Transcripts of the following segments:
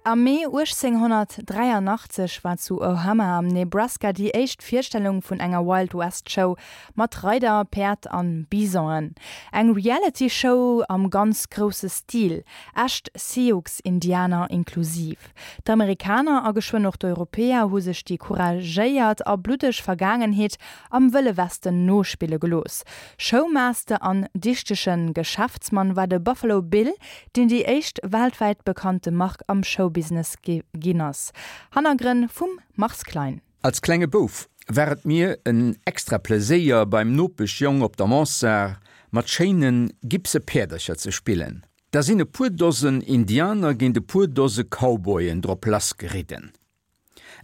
Am Mee 1883 war zu Ohama am Nebraska déi éischt Virstellung vun enger Wild West Show mat Reider, Päerd an Bisonen. Eng Reality Show am ganz grousse Stil, echt Sioux-Indianer inklusiv. D'Amerikaner a geschwënn och d'Europäer hu sech déi couragéiert a bluddeg Vergaangenheet am Wëlle Westen nospille gelooss. Showmaster an dichtege Geschäftsmann war de Buffalo Bill, deen déi éischt weltwäit bekannte Mark am Showbusiness ginn ass. Hannergrënn vum Mars Klein. Als klenge Bouf war et mir en extra Pleséier beim Nopeschjong op der Mansard mat schéine gipse Päerdercher ze spillen. Da sinn e puer Dosen Indianer géint e puer Dose Cowboyen drop lassgeridden.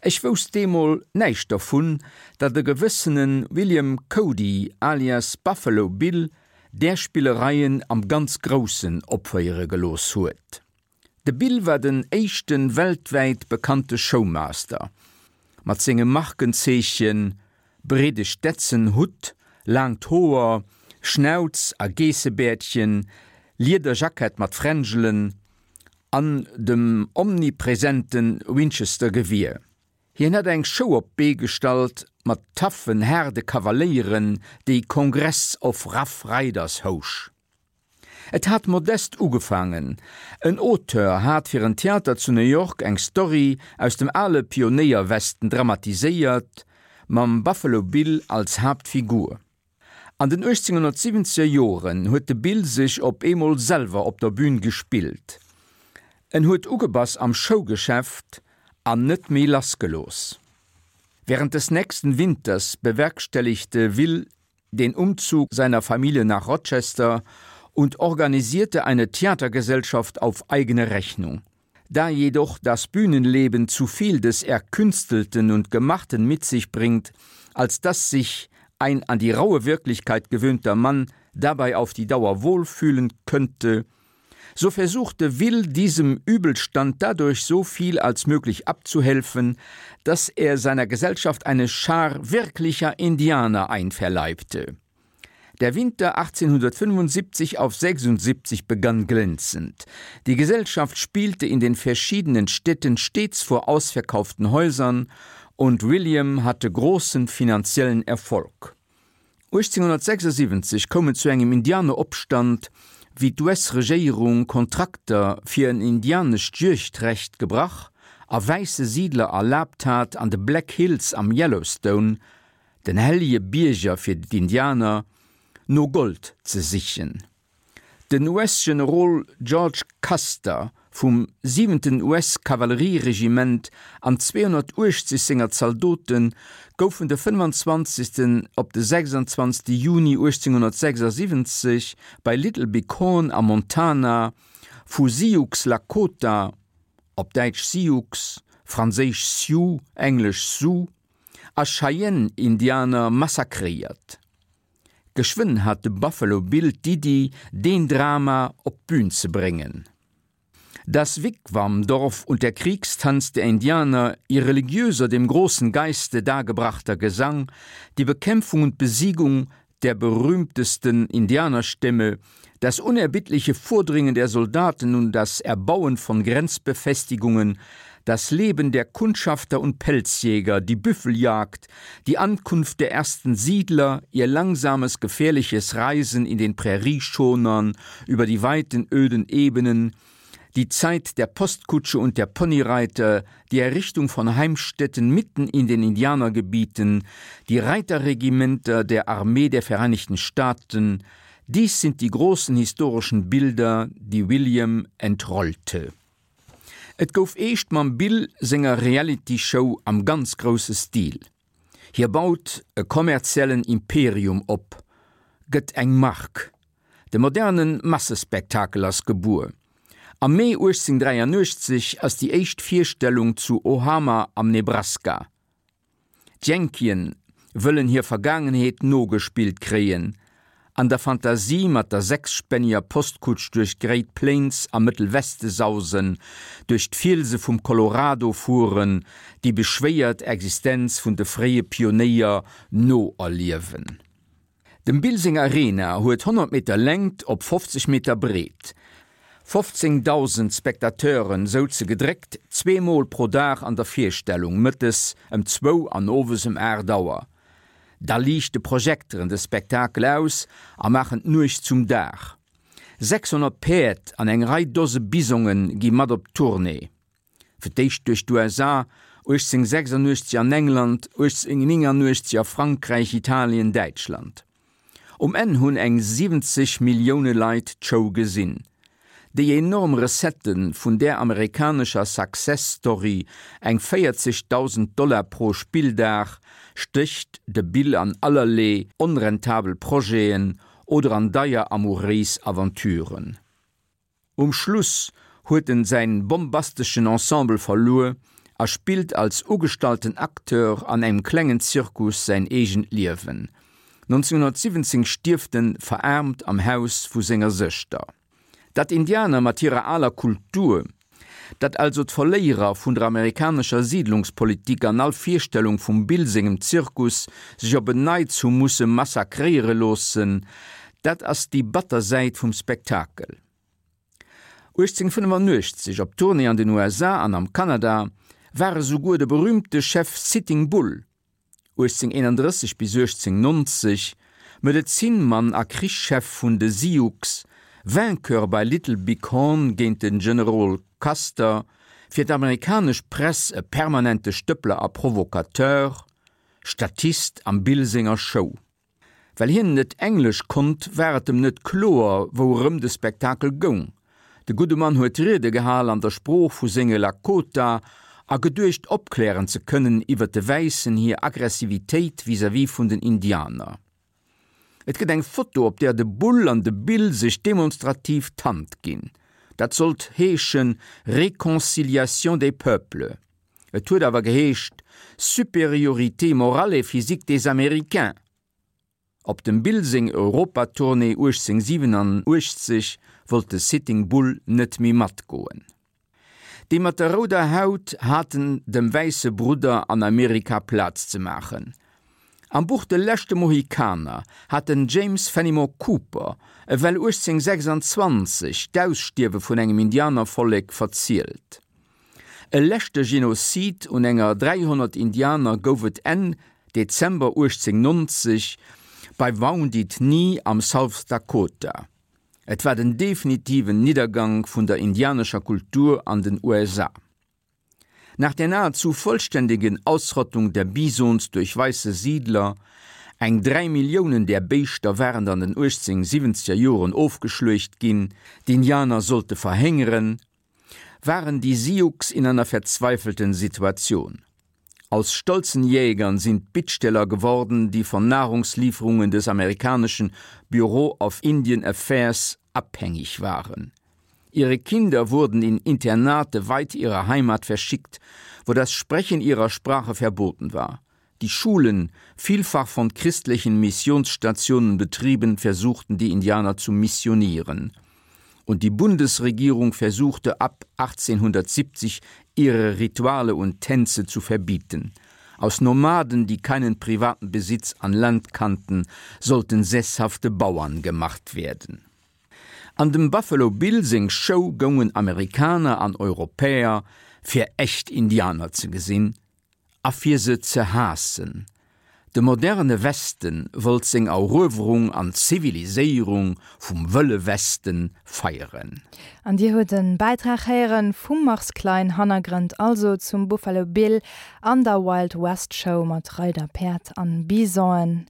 Ech wousst deemol näischt dervun, datt e gewëssene William Cody alias Buffalo Bill där Spillereien am ganz Groussen opféiere gelooss huet. De Bill war den éischte weltwäit bekannte Showmaster. Mat sengem Markenzeechen, breede Stetson-Hutt, laangt Hoer, Schnauz a Geessebäerdchen, Liederjackett mat Fränjelen, an dem omnipresente Winchester-Gewier. Hien hat eng Show op d'Bee gestallt mat taffen, haarde Kavaléieren, déi Congress of Rough Riders housch. Et hat modest ugefaangen, En Auteur hat fir en Theater zu New York eng Story aus dem ale Pionéierwesten dramatiséiert, mam Buffalo Bill als Haaptfigur. An den 1870er Joren huet de Bill sech op eemol selwer op der Bühn gespillt. En huet ugebass am Showgeschäft an net méi lassgelooss. Während des nächsten Winters bewerkstelligte Will den Umzug seiner Familie nach Rochester und organisierte eine Theatergesellschaft auf eigene Rechnung. Da jedoch das Bühnenleben zu viel des Erkünstelten und Gemachten mit sich bringt, als dass sich ein an die raue Wirklichkeit gewöhnter Mann dabei auf die Dauer wohlfühlen könnte, so versuchte Will diesem Übelstand dadurch so viel als möglich abzuhelfen, dass er seiner Gesellschaft eine Schar wirklicher Indianer einverleibte. Der Winter 1875 auf 76 begann glänzend. Die Gesellschaft spielte in den verschiedenen Städten stets vor ausverkauften Häusern und William hatte großen finanziellen Erfolg. 1876 koum et zu engem Indianeropstand, wéi d'US-Regéierung Kontrakter fir en indianescht Juegdrecht gebrach a wäisse Siidler erlaabt hat, an de Black Hills am Yellowstone, den hellege Bierger fir d'Indianer, no Gold ze sichen. Den US-Generol George Custer vum siwenten US-Kavallerieregiment an 280 senger Zaldote goufen de 25. Op de 26. Juni 1876 bei Little Bighorn am Montana vu Sioux Lakota, op Däitsch Sioux, franséisch Sioux, englesch Sioux, a Cheyenne-Indianer massakréiert. Geschwënn hat de Buffalo Bill d'Iddi, deen Drama op d'Bün ze bréngen. Das Wigwamdorf und der Kriegstanz der Indianer, ihr religiöser, dem großen Geiste dargebrachter Gesang, die Bekämpfung und Besiegung der berühmtesten Indianerstämme, das unerbittliche Vordringen der Soldaten und das Erbauen von Grenzbefestigungen, das Leben der Kundschafter und Pelzjäger, die Büffeljagd, die Ankunft der ersten Siedler, ihr langsames, gefährliches Reisen in den Prärieschonern über die weiten, öden Ebenen, die Zeit der Postkutsche und der Ponyreiter, die Errichtung von Heimstätten mitten in den Indianergebieten, die Reiterregimenter der Armee der Vereinigten Staaten, dies sind die großen historischen Bilder, die William entrollte. Et gouf eescht mam Bill senger Reality-Show am ganz grousse Stil. Hie baut e kommerziellen Imperium op, gëtt eng Mark. De moderne Massespektakel ass gebuer. Am Mee 1883 ass déi éischt Virstellung zu Ohama am Nebraska. D'Yankien wëllen hir Vergaangenheet nogespillt kréien, an der Fantasie mat der sechsspänniger Postkutsch duerch d'Great Plains am Mëttelweste sausen, duerch d'Fielse vum Colorado fueren, déi beschwéiert Existenz vun de fréie Pionéier noerliewen. Dem Bill seng Arena huet 100 Meter Längt op 50 Meter Breet. 15.000 Spectateuren souze gedréckt zweemol pro Dag an der Virstellung, mëttes ëm zwou an owes ëm 8 Auer. Da liichte Projekteren de Spektakel aus a maachen d'Nuecht zum Dag. 600 Päerd an eng Rei Dose Bisonge gi mat op d'Tournée. Fir d'éischt duerch d'USA, 1886 an England, 1889 a Frankräich, Italien, Däitschland. Um Enn hunn eng 70 Millioune Leit d'Show gesinn. Déi enorm Recettë vun där amerikanescher Success Story, eng 40.000 Dollar pro Spilldag, stécht de Bill an allerlee onrentabel Projeten oder an deier amouréis Aventuren. Um Schluss huet en säin bombasteschen Ensemble verluer a spillt als ugestallten Acteur an engem klengen Zirkus säin eegent Liewen. 1917 stierft en veraarmt am Haus vu senger Sëschter. Datt Indianer mat hirer aler Kultur, datt also d'Verléierer vun der amerikanescher Siedlungspolitik an all Virstellung vum Bill sengem Zirkus sech op en Neits hu musse massakréiere loossen, Dat ass déi batter Säit vum Spektakel. 1885, op Tournée an den USA an am Kanada, war esouguer de berüümte Chef Sitting Bull, 1831 bis 1890, Medezinmann a Krichschef vun de Sioux, Vainqueur bei Little Big Horn géint de Generol Custer, fir d'amerikanesch Press e permanente Stëppler a Provocateur, Statist am Bill senger Show. Well hien net Englesch konnt, war et em net kloer, wourëm de Spektakel goung. De gudde Mann huet Riede gehal an der Sprooch vu senge Lakota a geduecht opklären ze kënnen iwwer de Wäissen hir Aggressivitéit vis-à-vis vun den Indianer. Et gëtt eng Foto, op där de Bull an de Bill sech demonstrativ d'Hand ginn. Dat sollt heeschen Réconciliation des peuples. Et huet awer geheescht Supériorité morale et physique des Américains. Op dem Bill seng Europatournée 1887 wollt de Sitting Bull net méi matgoen. Déi mat der rouder Haut haten dem wäisse Brudder an Amerika Plaz ze maachen. Am Buch De leschte Mohikaner hat den James Fenimore Cooper ewell 1826 d'Ausstierwe vun engem Indianervollek verzielt. E leschte Genozid un enger 300 Indianer gouf et Enn Dezember 1890 bei Wounded Knee am South Dakota. Et war den definitiven Niddergank vun der indianescher Kultur an den USA. Nach der nahezu vollständigen Ausrottung der Bisons durch weiße Siedler, eng 3 Milliounen där Béischter waren an den 1870er Joren ofgeschluecht ginn, d'Indianer sollte verhéngeren, waren die Sioux in einer verzweifelten Situation. Aus stolzen Jägern sind Bittsteller geworden, die von Nahrungslieferungen des amerikanischen Bureau of Indian Affairs abhängig waren. Ihre Kinder wurden in Internate weit ihrer Heimat verschickt, wo das Sprechen ihrer Sprache verboten war. Die Schulen, vielfach von christlichen Missionsstationen betrieben, versuchten die Indianer zu missionieren. Und die Bundesregierung versuchte ab 1870 ihre Rituale und Tänze zu verbieten. Aus Nomaden, die keinen privaten Besitz an Land kannten, sollten sesshafte Bauern gemacht werden. An dem Buffalo Bill seng Show goungen Amerikaner an Europäer, fir echt Indianer ze gesinn, a fir se ze haassen. De moderne Westen wollt seng Eruewerung an Ziviliséierung vum Wëlle Westen feieren. An Dir huet e Bäitrag héieren vum Mars Klein, Hannergrënd also zum Buffalo Bill an der Wild West Show mat Reider, Päerd an Bisonen.